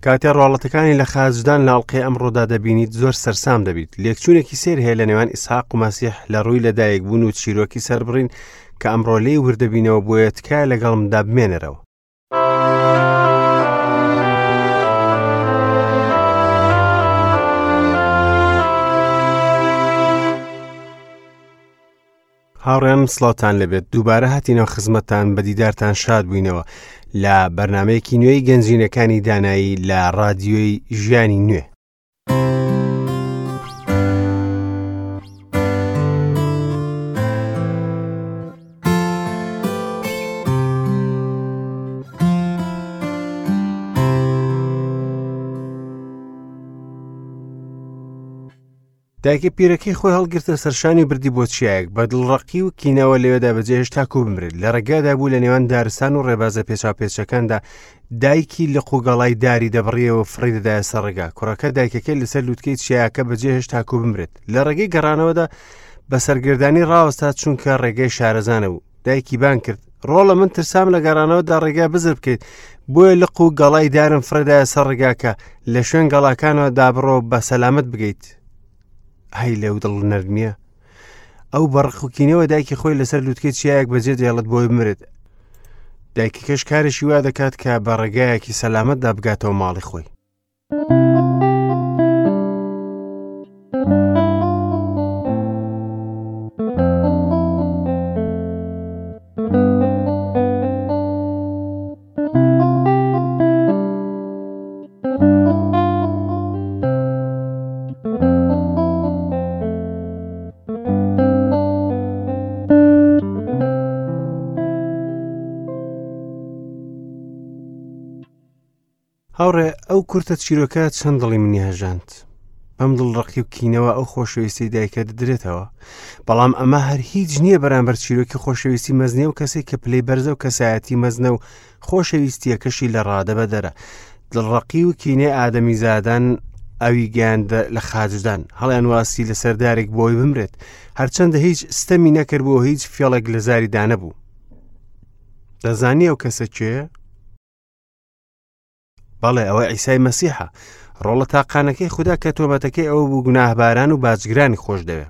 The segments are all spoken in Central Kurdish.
کاتێ ڕواڵەتەکانی لە خاچدان لە ئەڵقەی ئەمڕۆدا دەبینیت زۆر سەرسام دەبیت. لێکچوونێکی سەیر هەیە لە نێوان ئیسحاق و مەسیح لە ڕووی لەدایکبوون و چیرۆکی سەربڕین کە ئەمڕۆ لێی وردەبینەوە بۆیە تکایە لەگەڵمدا بمێنەرەوە. هاوڕێیانم سڵاوتان لەبێت دووبارە هاتینەوە خزمەتتان بە دیدارتان شاد بووینەوە لە بەرنمەیەکی نوێی گەنجینەکانی دانایی لە ڕادیۆی ژیانی نوێ. دایکە پیرەکەی خۆی هەڵگرتە سەرشانی و بردی بۆ چیایەک بە دڵڕەقی و کینەوە لەوێدا بەجێهێشت تاکو بمرێت لە ڕێگادا بوو لە نێوان دارستان و ڕێبازە پێچاوپێچەکاندا دایکی لق و گەڵای داری دەبڕیەوە فڕی دەدایە سەر ڕێگا کوڕەکە دایکەکەی لەسەر لوتکەی چیاکە بەجێهێشت تاکو بمرێت لە ڕێگەی گەڕانەوەدا بە سەرگردانی ڕاوەستا چونکە ڕێگەی شارەزانە بوو دایکی بان کرد ڕۆڵە من ترسام لە گەڕانەوەدا ڕێگا بزر بکەیت بۆیە لق و گەڵای دارم فرەدایە سەر ڕێگاکە لە شوێن گەڵاکانەوە دابڕۆ بە سەلامت بگەیت هەی لەو دڵ نەرمیە ئەو بەڕقوکینەوە دایکی خۆی لەسەر لوتکەی چیایەک بەجێ دێڵێت بۆی بمرێت دایکەکەش کارێکی وا دەکات کە بە ڕێگایەکی سەلامەتدا بگاتەوە ماڵی خۆی هاوڕێ ئەو کورتە چیرۆکە چەند دڵی منی هەژاند بەم دڵڕقی و کینەوە ئەو خۆشەویستی دایکە دەدرێتەوە بەڵام ئەمە هەر هیچ نییە بەرامبەر چیرۆکی خۆشەویستی مەزنێ و کەسێک کە پلەی بەرزە و کەسایەتی مەزنە و خۆشەویستیەکەشی لە ڕادە بەدەرە دڵڕقی و کینەی ئادەمیزادان ئەوی گەیاندە لە خاجدان هەڵیان واسی لە سەردارێک بۆی بمرێت هەرچەندە هیچ ستەمی نەکرد بۆ هیچ فێڵێک لە زاری دانەبوو دەزانی ئەو کەسە کێیە؟ بەڵێ ئەوە ئیسای مەسیحە ڕۆڵە تاقانەکەی خوددا کە تۆمەتەکەی ئەوە بوو گوناهباران و باجگرانی خۆش دەوێ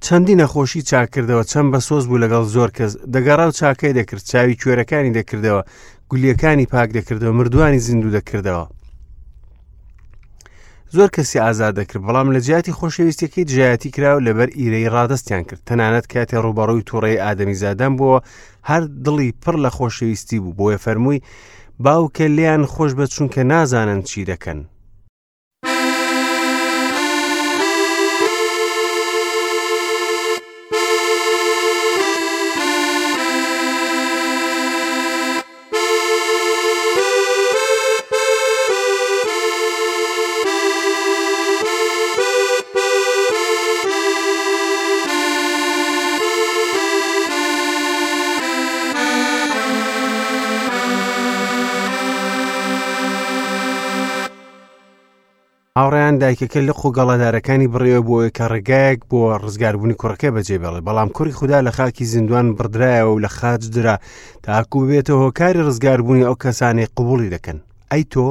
چەندی نەخۆشی چاکردەوە چەند بە سۆز بوو لەگەڵ زۆر کەس دەگەڕا و چاکەی دەکرد چاوی کوێرەکانی دەکردەوە گولیەکانی پاک دەکردەوە مردووانی زیندوو دەکردەوە زۆر کەسی ئازاد دەکرد بەڵام لە جیاتی خۆشەویستیەکەی دژایەتی کرا و لەبەر ئیرەی ڕادەستیان کرد تەنانەت کاتێ ڕووبەڕووی تووڕەی ئادەمیزادان بووە هەر دڵی پڕ لە خۆشەویستی بوو بۆیە فەرمووی باوکە لێیان خۆش بە چونکە نازانن چی دەکەن. هاوڕێیان دایکەکە لق و گەڵادارەکانی بڕیەوە بۆ ئەوەی کە ڕێگایەک بۆ ڕزگاربوونی کوڕەکەی بەجێ بێڵێت بەڵام کوڕی خودا لە خاکی زیندوان بڕدرایەوە و لە خاچ درا تاکو ببێتە هۆکاری ڕزگاربوونی ئەو کەسانەی قبوڵی دەکەن ئەی تۆ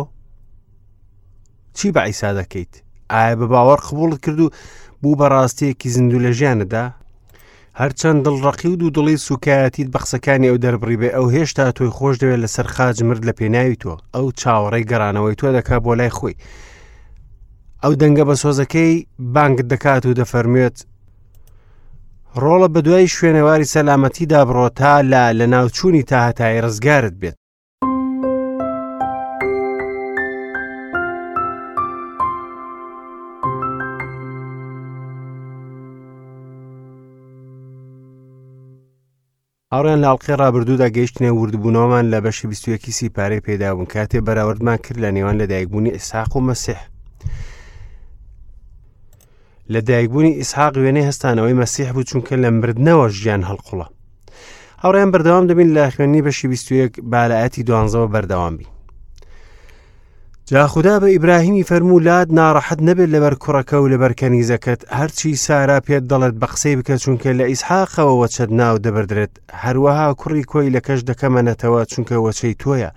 چی بە عیسا دەکەیت ئایا بە باوەڕ قبوڵت کرد و بوو بە ڕاستیەکی زیندوو لە ژیانتدا هەرچەند دڵڕەقی و دوودڵی سوکایەتیت بە قسەکانی ئەو دەربڕی بێ ئەو هێشتا تۆی خۆش دەوێت لەسەر خاج مرد لە پێناوی تۆ ئەو چاوەڕێی گەڕانەوەی تۆ دەکا بۆ لای خۆی ئەو دەنگە بە سۆزەکەی بانگت دەکات و دەفەرموێت ڕۆڵە بە دوای شوێنەواری سەلامەتیدا بڕۆ تا لە لەناوچوونی تا هەتایی ڕزگارت بێت. هاوڕێیان لە ئەڵقەی ڕابردوودا گەیشتنە وردبوونەوەمان لە بەشی 21 سیپارەی پێدابوون کاتێ بەراوردمان کرد لە نێوان لەدایکبوونی ئیسحاق و مەسیح لە دایکبوونی ئیسحاق وێنەی هەستانەوەی مەسیح بوو چونکە لە مردنەوە ژیان هەڵقوڵە هاوڕێیان بەردەوام دەبین لە خوێندنی بەشی 21 بالایەتی دوانزەوە بەردەوام بین جا خودا بە ئیبراهیمی فەرموو لات ناڕەحەت نەبێت لەبەر کوڕەکە و لەبەر کەنیزەکەت هەرچی سارا پێت دەڵێت بە قسەی بکە چونکە لە ئیسحاقەوە وەچەت ناو دەبردرێت هەروەها کوڕی کۆیلەکەش دەکەمە نەتەوە چونکە وەچەی تۆیە.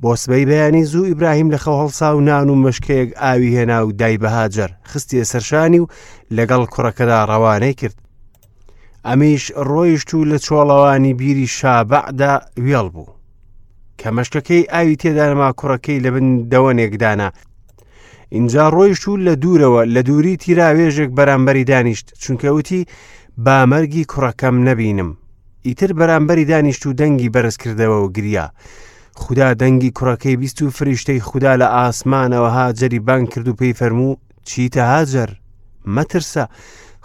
بۆ سبەی بەیانی زوو ئیبراهیم لە خەو هەڵسا و نان و مەشکەیەک ئاوی هێنا و دای بە هاجەر، خستیە سەرشانی و لەگەڵ کوڕەکەدا ڕەوانەی کرد. ئەمیش ڕۆیشت و لە چۆڵەوانی بیری شابەعدا وێڵ بوو. کە مەشکەکەی ئاوی تێدا نەما کوڕەکەی لە بن دەوەنێک دانا. ئینجا ڕۆیشت و لە دوورەوە لە دووری تیراوێژێک بەرامبەری دانیشت، چونکە وتی با مەرگی کوڕەکەم نەبینم. ئیتر بەرامبەری دانیشت و دەنگی بەرز کردەوە و گریا. خودا دەنگی کوڕەکەی بیست و فریشتەی خودا لە ئاسمانەوە هاجەری بانگ کرد و پێی فەرموو چیتە هاجەر؟ مەترسە،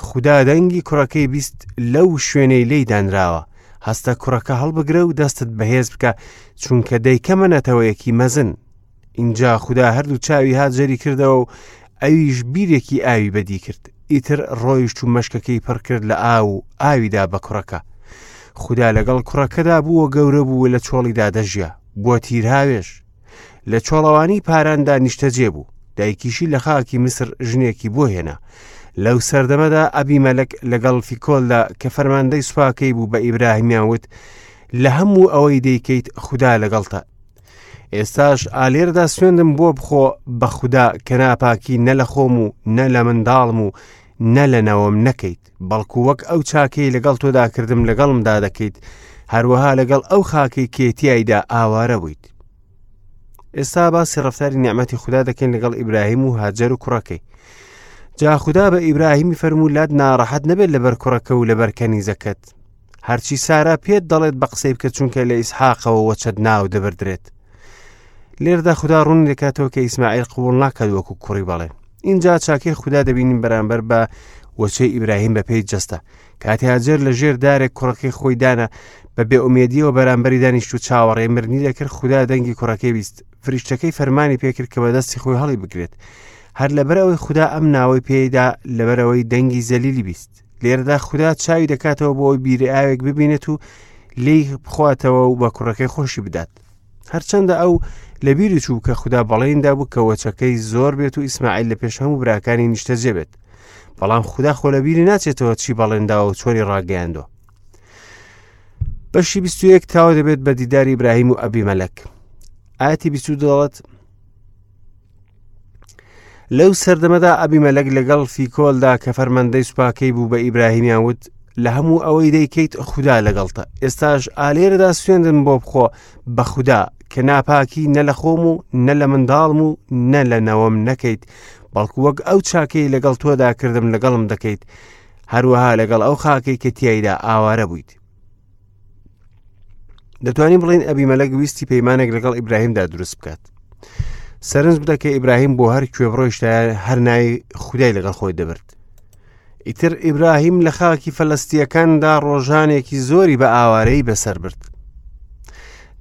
خودا دەنگی کوڕەکەی بیست لەو شوێنەی لێی دانراوە. هەستە کوڕەکە هەڵبگرە و دەستت بەهێز بکە، چونکە دەیکەمە نەتەوەیەکی مەزن. ئینجا خودا هەردوو چاوی هاجەری کردەوە و ئەویش بیرێکی ئاوی بەدی کرد. ئیتر ڕۆیشت و مەشکەکەی پڕ کرد لە ئاو و ئاویدا بە کوڕەکە. خودا لەگەڵ کوڕەکەدا بوو و گەورە بوو و لە چۆڵیدا دەژیا. بووە تیرهاوێژ. لە چۆڵەوانی پاراندا نیشتەجێ بوو. دایکیشی لە خاکی میسر ژنێکی بۆ هێنا. لەو سەردەمەدا ئەبیمەلەک لەگەڵ فیکۆلدا کە فەرماندەی سوپاکەی بوو بە ئیبراهیمیان وت، لە هەموو ئەوەی دەیکەیت خودا لەگەڵتە. ئێستاش ئالێردا سوێندم بۆ بخۆ بە خودا کە ناپاکی نە لە خۆم و نە لە منداڵم و نە لە نەوەم نەکەیت بەڵکو وەک ئەو چاکەی لەگەڵ تۆدا کردم لەگەڵمدا دەکەیت هەروەها لەگەڵ ئەو خاکەی کێتیایدا ئاوارە بوویت ئێستا باسی ڕفتاری نیعممەتی خوددا دەکەین لەگەڵ ئیبراهیم و هاجەر و کوڕەکەی جا خودا بە ئیبراهیمی فەرموو لات ناڕەحەت نەبێت لەبەر کوڕەکە و لەبەر کەنیزەکەت هەرچی سارا پێت دەڵێت بە قسەی بکە چونکە لە ئیسحاقەوە وەچەت ناو دەبردرێت لێردا خودا ڕوون دەکاتەوە کە ئیسماعیل قبول ناکات وەکو کوڕی بەڵێن اینجا چاکەی خودا دەبینین بەرامبەر بە وەچەی ئیبراهیم بە پێی جەستە کاتی هاجەر لە ژێر دارێک کوڕەکەی خۆی دانا بە بێ ئومێدیەوە بەرامبەری دانیشت و چاوەڕێ مرنی دەکرد خودا دەنگی کوڕەکەی بیست فریشتەکەی فەرمانی پێکرد کە بەدەستی خۆی هەڵی بگرێت هەر لەبەرئەوەی خودا ئەم ناوەی پێیدا لەبەرئەوەی دەنگی زەلیلی بیست لێرەدا خودا چاوی دەکاتەوە بۆ ئەوی بیری ئاوێک ببینێت و لێی بخواتەوە و بە کوڕەکەی خۆشی بدات هەرچەندە ئەو لەبیری چوو کە خودا بەڵێندا بوو کە وەچەکەی زۆر بێت و ئیسماعیل لە پێش هەموو براکانی نیشتەجێ بێت بەڵام خودا خۆ لەبیری ناچێتەوە چی بەڵێنداوە و چۆنی ڕاگەیاندووە بەشی 21 تاوە دەبێت بە دیداری ئیبراهیم و ئەبیمەلەک ئاەتی 22 دەڵێت لەو سەردەمەدا ئەبیمەلەک لەگەڵ فیکۆلدا کە فەرماندەی سوپاکەی بوو بە ئیبراهیمیان وت لە هەموو ئەوەی دەیکەیت خودا لەگەڵتە ئێستاش ئالێرەدا سوێندم بۆ بخۆ بە خودا کە ناپاکی نە لە خۆم و نە لە منداڵم و نە لە نەوەم نەکەیت بەڵکو وەک ئەو چاکەی لەگەڵ تۆدا کردم لەگەڵم دەکەیت هەروەها لەگەڵ ئەو خاکەی کە تیایدا ئاوارە بوویت دەتوانین بڵین ئەبیمەلەک ویستی پەیمانێک لەگەڵ ئیبراهیمدا دروست بکات سەرنج بدە کە ئیبراهیم بۆ هەر کوێ بڕۆیشتایە هەر ناوی خودای لەگەڵ خۆی دەبرد ئیتر ئیبراهیم لە خاکی فەلەستیەکاندا ڕۆژانێکی زۆری بە ئاوارەی بەسەر برد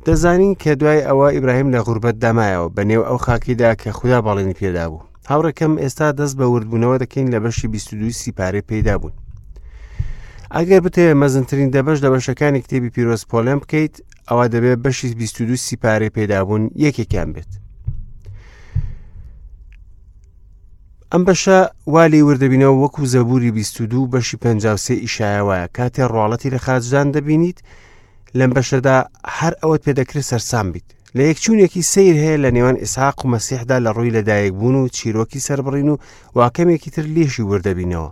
دەزانین کە دوای ئەوە ئیبراهیم لە غوربەت دامایەوە بە نێو ئەو خاکیدا کە خودا بەڵێنی پێدا بوو هاوڕێکەم ئێستا دەست بە وردبوونەوە دەکەین لە بەشی 22 سیپارەی پەیدا بوون ئەگەر بتەوێت مەزنترین دەبەش لە بەشەکانی کتێبی پیرۆز پۆلێن بکەیت ئەوە دەبێت بەشی 22 سیپارەی پەیدابوون یەکێکیان بێت ئەم بەشە وا لێی وردەبینەوە وەکو زەبوری 22 بەشی 53 ئیشایە وایە کاتێ ڕواڵەتی لە خاچدان دەبینیت لەم بەشەدا هەر ئەوەت پێدەکرێت سەرسام بیت لە یەکچوونێکی سیر هەیە لە نێوان ئیسحاق و مەسیحدا لە ڕووی لەدایکبوون و چیرۆکی سەربڕین و واکەمێکی تر لێشی وردەبینەوە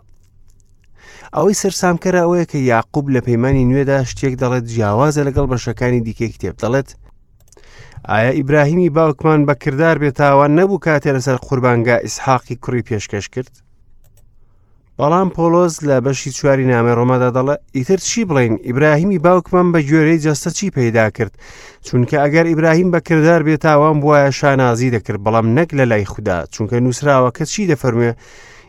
ئەوەی سەرسامکەرە ئەوەیە کە یاقوب لە پەیمانی نوێدا شتێک دەڵێت جیاوازە لەگەڵ بەشەکانی دیکەی کتێب دەڵێت ئایا ئیبراهیمی باوکمان بە کردار بێتاوان نەبوو کاتێ لەسەر قوربانگا ئیسحاقی کوڕی پێشکەش کرد بەڵام پۆلۆس لە بەشی چواری نامەی ڕۆمادا دەڵێ ئیتر چی بڵین ئیبراهیمی باوکمان بە گوێرەی جەستە چی پەیدا کرد چونکە ئەگەر ئیبراهیم بە کردار بێتاوان بواە شانازی دەکرد بەڵام نەک لە لای خودا چونکە نووسراوە کە چی دەفەرموێ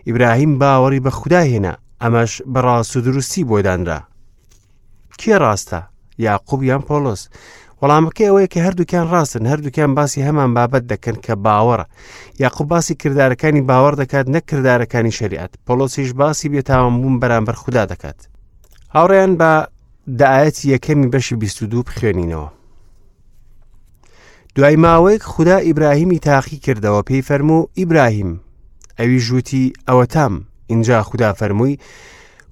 ئیبراهیم باوەڕی بە خودا هێنا ئەمەش بە ڕاست و دروستی بۆ دانرا کێ ڕاستە یاقوب یان پۆلۆس وەڵامەکەی ئەوەیە کە هەردووکیان ڕاستن هەردووکیان باسی هەمان بابەت دەکەن کە باوەڕە یاقوب باسی کردارەکانی باوەڕ دەکات نەک کردارەکانی شریعەت پۆلۆسیش باسی بێتاوان بوون بەرامبەر خودا دەکات هاوڕێیان بە دایەتی یەکەمی بەشی 22 بخوێنینەوە دوای ماوەیەک خودا ئیبراهیمی تاقی کردەوە پێی فەرموو ئیبراهیم ئەویش وتی ئەوەتام ئینجا خودا فەرمووی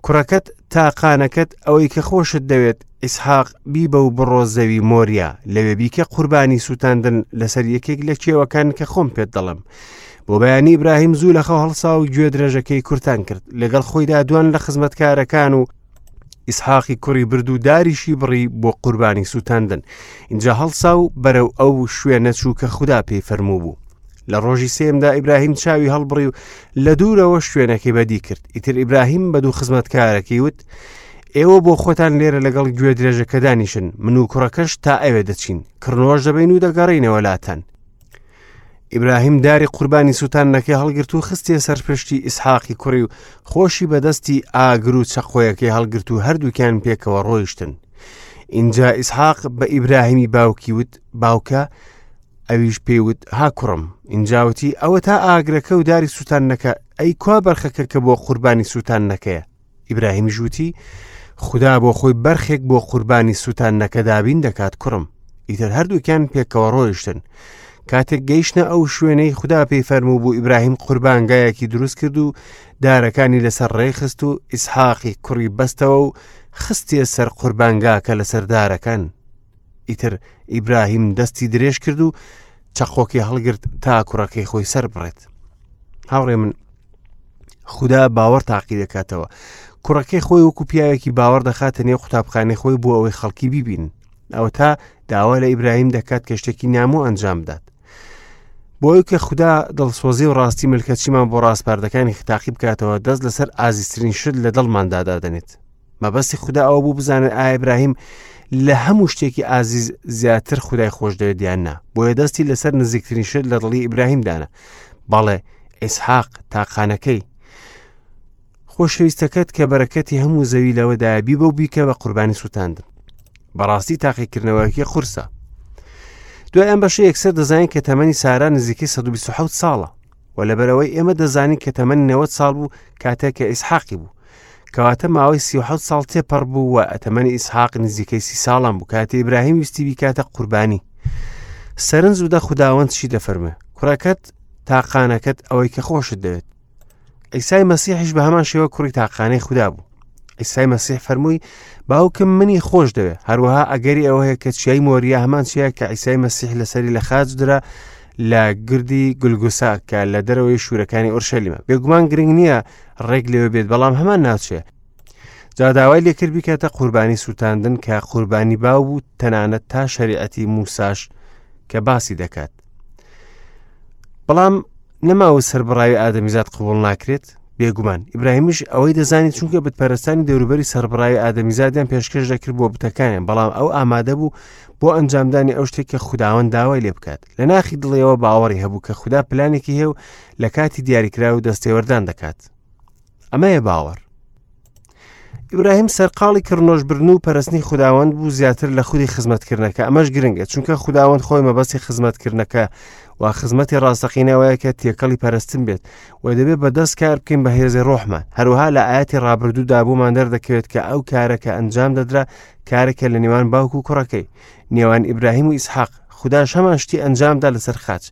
کوڕەکەت تاقانەکەت ئەوەی کە خۆشت دەوێت ئیسحاق بیبە و بڕۆ زەوی مۆریا لەوێ بیکە قوربانی سووتاندن لەسەر یەکێک لە کێوەکان کە خۆم پێت دەڵێم بۆ بەیانی ئیبراهیم زوو لە خەو هەڵسا و گوێ درێژەکەی کورتان کرد لەگەڵ خۆیدا دوان لە خزمەتکارەکان و ئیسحاقی کوڕی برد و داریشی بڕی بۆ قوربانی سووتاندن اینجا هەڵسا و بەرەو ئەو شوێنە چوو کە خودا پێی فەرموو بوو لە ڕۆژی سێمدا ئیبراهیم چاوی هەڵبڕی و لە دوورەوە شوێنەکەی بەدی کرد ئیتر ئیبراهیم بە دوو خزمەتکارەکەی وت ئێوە بۆ خۆتان لێرە لەگەڵ گوێ درێژەکە دانیشن من و کوڕەکەش تا ئەوێ دەچین کڕنۆش دەبین و دەگەڕینەوە لاتان ئیبراهیم داری قوربانی سووتاندنەکەی هەڵگرت و خستیە سەر پشتی ئیسحاقی کوڕی و خۆشی بەدەستی ئاگر و چەقۆیەکەی هەڵگرت و هەردووکیان پێکەوە ڕۆیشتن. ئینجا ئیسحاق بە ئیبراهیمی باوکی وت باوکە ئەویش پێی وت ها کوڕم ئینجا وتی ئەوە تا ئاگرەکە و داری سووتاندنەکە ئەی کوا بەرخەکە کە بۆ قوربانی سووتاندنەکەیە ئیبراهیمیش وتی خودا بۆ خۆی بەرخێک بۆ قوربانی سووتاندنەکە دابین دەکات کوڕم ئیتر هەردووکیان پێکەوە ڕۆیشتن کاتێک گەیشتە ئەو شوێنەی خودا پێی فەرموو بوو ئیبراهیم قوربانگایەکی دروست کرد و دارەکانی لەسەر ڕێخست و ئیسحاقی کوڕی بەستەوە و خستیە سەر قوربانگاکە لەسەر دارەکان ئیتر ئیبراهیم دەستی درێژ کرد و چەقۆکی هەڵگرت تا کوڕەکەی خۆی سەر بڕێت هاوڕێ من خودا باوەڕ تاقی دەکاتەوە کوڕەکەی خۆی وەکو پیاوێکی باوەڕ دەخاتە نێو قوتابخانەی خۆی بۆ ئەوەی خەڵکی بیبین ئەوە تا داوا لە ئیبراهیم دەکات کە شتێکی نامۆ ئەنجام بدات بۆی کە خودا دڵسۆزی و ڕاستی ملکەچیمان بۆ ڕاسپاردەکانی تاقی بکاتەوە دەست لەسەر ئازیزترین شت لە دڵماندا دادەنێت مەبەستی خودا ئەوە بوو بزانێت ئایا ئیبراهیم لە هەموو شتێکی ئازیز زیاتر خودای خۆش دەوێت یان نا بۆیە دەستی لەسەر نزیکترین شت لە دڵی ئیبراهیم دانا بەڵێ ئیسحاق تاقانەکەی خۆشەویستەکەت کە بەرەکەتی هەموو زەوی لەوەدایە بیبە و بیکە بە قوربانی سووتاندن بەڕاستی تاقیکردنەوەیەکی قورسە دوای ئەم بەشە یەکسەر دەزانین کە تەمەنی سارا نزیکەی 127 ساڵە و لەبەرەوەی ئێمە دەزانین کە تەمەنی 90 ساڵ بوو کاتێک کە ئیسحاقی بوو کەواتە ماوەی 37 ساڵ تێپەڕ بوو و تەمەنی ئیسحاق نزیکەی سی ساڵان بوو کاتێ ئیبراهیم ویستی بیکاتە قوربانی سەرنج بدە خوداوەند چی دەفەرموێ کوڕەکەت تاقانەکەت ئەوەی کە خۆشت دەوێت ئیسای مەسیحیش بە هەمان شێوە کوڕی تاقانەی خودا بوو ئیسای مەسیح فەرمووی باوکم منی خۆش دەوێ هەروەها ئەگەری ئەوە هەیە کە چیای مۆریا هەمان چیە کە ئیسای مەسیح لەسەری لە خاچ درا لە گردی گولگوسا کە لە دەرەوەی شوورەکانی ئۆرشەلیمە بێگومان گرنگ نییە ڕێک لەوێ بێت بەڵام هەمان ناوچەیە جا داوای لێکرد بیکاتە قوربانی سووتاندن کە قوربانی باو بوو تەنانەت تا شەریعەتی موساش کە باسی دەکات بەڵام نەماوە سەربڕاوی ئادەمیزاد قبول ناکرێت بێگومان ئیبراهیمیش ئەوەی دەزانی چونکە بتپەرستانی دەوروبەری سەربڕاوی ئادەمیزادیان پێشکەش دەکرد بۆ بتەکانیان بەڵام ئەو ئامادە بوو بۆ ئەنجامدانی ئەو شتێک کە خوداوەند داوای لێ بکات لە ناخی دڵیەوە باوەڕی هەبوو کە خودا پلانێکی هەیە و لە کاتی دیاریکراو دەستێوەردان دەکات ئەمەیە باوەڕ ئیبراهیم سەرقاڵی کڕنۆشبردن و پەرستنی خوداوەند بوو زیاتر لە خودی خزمەتکردنەکە ئەمەش گرنگە چونکە خوداوەند خۆی مەبەستی خزمەتکردنەکە و خزمەتی ڕاستەقینەوەیە کە تێکەڵی پەرستن بێت و دەبێت بە دەست کار بکەین بە هێزی ڕۆحمان هەروەها لە ئاەتی ڕابردوودا بۆمان دەردەکەوێت کە ئەو کارە کە ئەنجام دەدرا کارێکە لە نێوان باوک و کوڕەکەی نێوان ئیبراهیم و ئیسحاق خوداش هەمان شتی ئەنجامدا لەسەر خاچ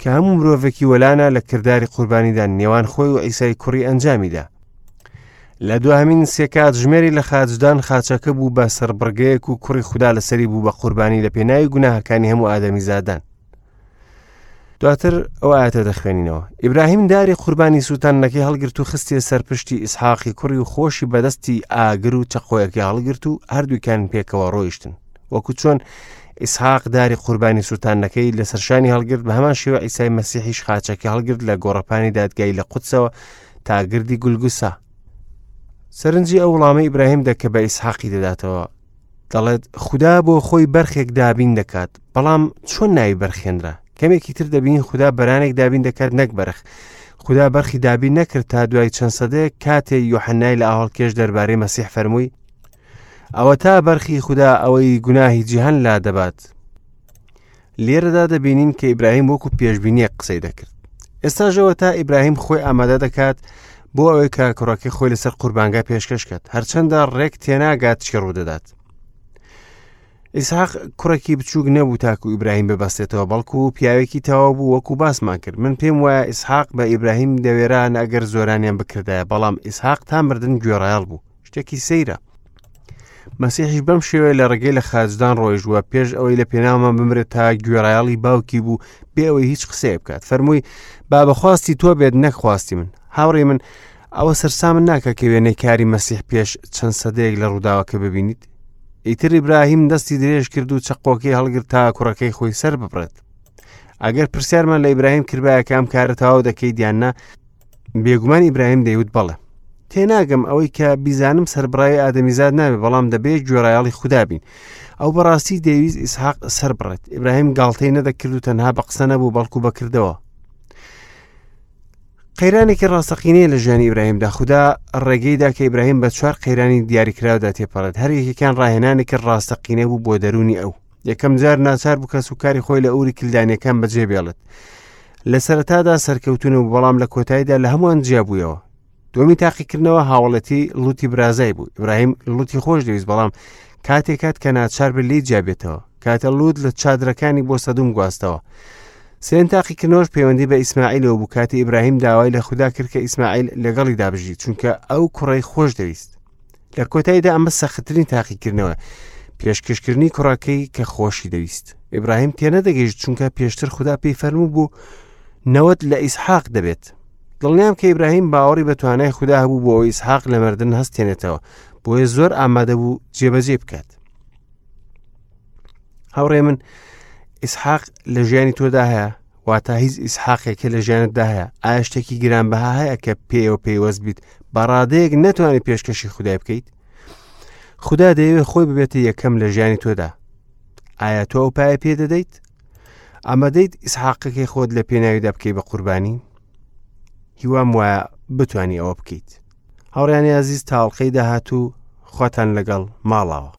کە هەموو مرۆڤێکی وەلانە لە کرداری قوربانیدان نێوان خۆی و ئیسای کوڕی ئەنجامیدا لە دوهمین سێ کاتژمێری لە خاچدان خاچەکە بوو بە سەربڕگەیەک و کوڕی خودا لەسەری بوو بە قوربانی لە پێناوی گوناهەکانی هەموو ئادەمیزادان دواتر ئەو ئاەتە دەخوێنینەوە ئیبراهیم داری قوربانی سووتاندنەکەی هەڵگرت و خستیە سەر پشتی ئیسحاقی کوڕی و خۆشی بەدەستی ئاگر و چەقۆیەکەی هەڵگرت و هەردووکیان پێکەوە ڕۆیشتن وەکو چۆن ئیسحاق داری قوربانی سووتاندنەکەی لەسەر شانی هەڵگرت بە هەمان شێوە ئیسای مەسیحیش خاچەکەی هەڵگرت لە گۆڕەپانی دادگای لە قودسەوە تا گردی گولگوسا سەرنجی ئەو وڵامەی ئیبراهیم دە کە بە ئیسحاقی دەداتەوە دەڵێت خودا بۆ خۆی بەرخێک دابین دەکات بەڵام چۆن ناوی بەرخێنرا کەمێکی تر دەبین خودا بەرانێک دابین دەکات نەک بەرخ خودا بەرخی دابین نەکرد تا دوای چەند سەدەیەک کاتێ یۆحەنای لە ئاوەڵکێش دەربارەی مەسیح فەرمووی ئەوە تا بەرخی خودا ئەوەی گوناهی جیهان لا دەبات لێرەدا دەبینین کە ئیبراهیم وەکو پێشبینیەک قسەی دەکرد ئێستاژەوە تا ئیبراهیم خۆی ئامادە دەکات بۆ ئەوەی کە کوڕەکەی خۆی لەسەر قوربانگا پێشکەش کات هەرچەندە ڕێک تێناگات چی ڕوودەدات ئیسحاق کوڕێکی بچووک نەبوو تاکو ئیبراهیم ببەستێتەوە بەڵکو پیاوێکی تەواو بوو وەکو باسمان کرد من پێم وایە ئیسحاق بە ئیبراهیم دەوێران ئەگەر زۆرانیان بکردایە بەڵام ئیسحاق تا مردن گوێڕایەڵ بوو. شتێکی سەیرە. مەسیحیش بەم شێوەیە لە ڕێگەی لە خاچدان ڕۆیشتووە پێش ئەوەی لە پێناومان بمرێت تا گوێڕایەڵی باوکی بوو بێ ئەوەی هیچ قسەیە بکات فەرمووی با بەخواستی تۆ بێت نەک خواستی من هاوڕێ من ئەوە سەرسامن ناکە کە وێنەی کاری مەسیح پێش چەند سەدەیەک لە ڕووداوەکە ببینیت ئیتر ئیبراهیم دەستی درێژ کرد و چەقۆکەی هەڵگرت تا کوڕەکەی خۆی سەر ببڕێت ئەگەر پرسیارمان لە ئیبراهیم کردبایە کە ئەم کارە تەواو دەکەیت یان نا بێگومان ئیبراهیم دەیوت بەڵێ تێناگەم ئەوەی کە بیزانم سەربڕاوی ئادەمیزاد نابێ بەڵام دەبێت گوێڕایەڵی خودا بین ئەو بەڕاستی دەیویست ئیسحاق سەربڕێت ئیبراهیم گاڵتەی نەدەکرد و تەنها بە قسە نەبوو بەڵکو بەکردەوە قەیرانێکی ڕاستەقینەیە لە ژیانی ئیبراهیمدا خودا ڕێگەیدا کە ئیبراهیم بە چوار قەیرانی دیاریکراودا تێپەڕێت هەر یەکێکیان ڕاهێنانێکی ڕاستەقینە بوو بۆ دەروونی ئەو یەکەم جار ناچار بوو کەس و کاری خۆی لە ئوری کلدانیەکان بەجێ بێڵێت لە سەرەتادا سەرکەوتون و بەڵام لە کۆتاییدا لە هەمووان جیابوویەوە دومی تاقیکردنەوە هاوڵەتی لوتی برازای بوو ئیبراهیم لوتی خۆش دەویست بەڵام کاتێک کات کە ناچار بێت لێی جیابێتەوە کاتە لوت لە چادرەکانی بۆ سەدوم گواستەوە سێن تاقیکردنەوەش پەیوەندی بە ئیسماعیلەوە بوو کاتی ئیبراهیم داوای لە خودا کرد کە ئیسماعیل لەگەڵیدا بژی چونکە ئەو کوڕەی خۆش دەویست لە کۆتاییدا ئەمە سەختترین تاقیکردنەوە پێشکەشکردنی کوڕەکەی کە خۆشی دەویست ئیبراهیم تێنەدەگەیشت چونکە پێشتر خودا پێی فەرموو بوو نەوەت لە ئیسحاق دەبێت دڵنیام کە ئیبراهیم باوەڕی بە توانای خودا هەبوو بۆ ئەوەی ئیسحاق لە مردن هەستێنێتەوە بۆیە زۆر ئامادە بوو جێبەجێ بکات هاوڕێ من ئیسحاق لە ژیانی تۆدا هەیە واتە هیچ ئیسحاقێکە لە ژیانتدا هەیە ئایا شتێکی گرانبەها هەیە کە پێیەوە پەیوەست بیت بە ڕادەیەک نەتوانانی پێشکەشی خودای بکەیت خودا دەیەوێت خۆی ببێتە یەکەم لە ژیانی تۆدا ئایا تۆ ئەو پایە پێ دەدەیت ئامادەیت ئیسحاقەکەی خۆت لە پێناویدا بکەی بە قوربانی هیوام وایە بتانی ئەوە بکەیت هاوڕیانی ئازیز تاڵقەی داهاتوو خواتان لەگەڵ ماڵاوە.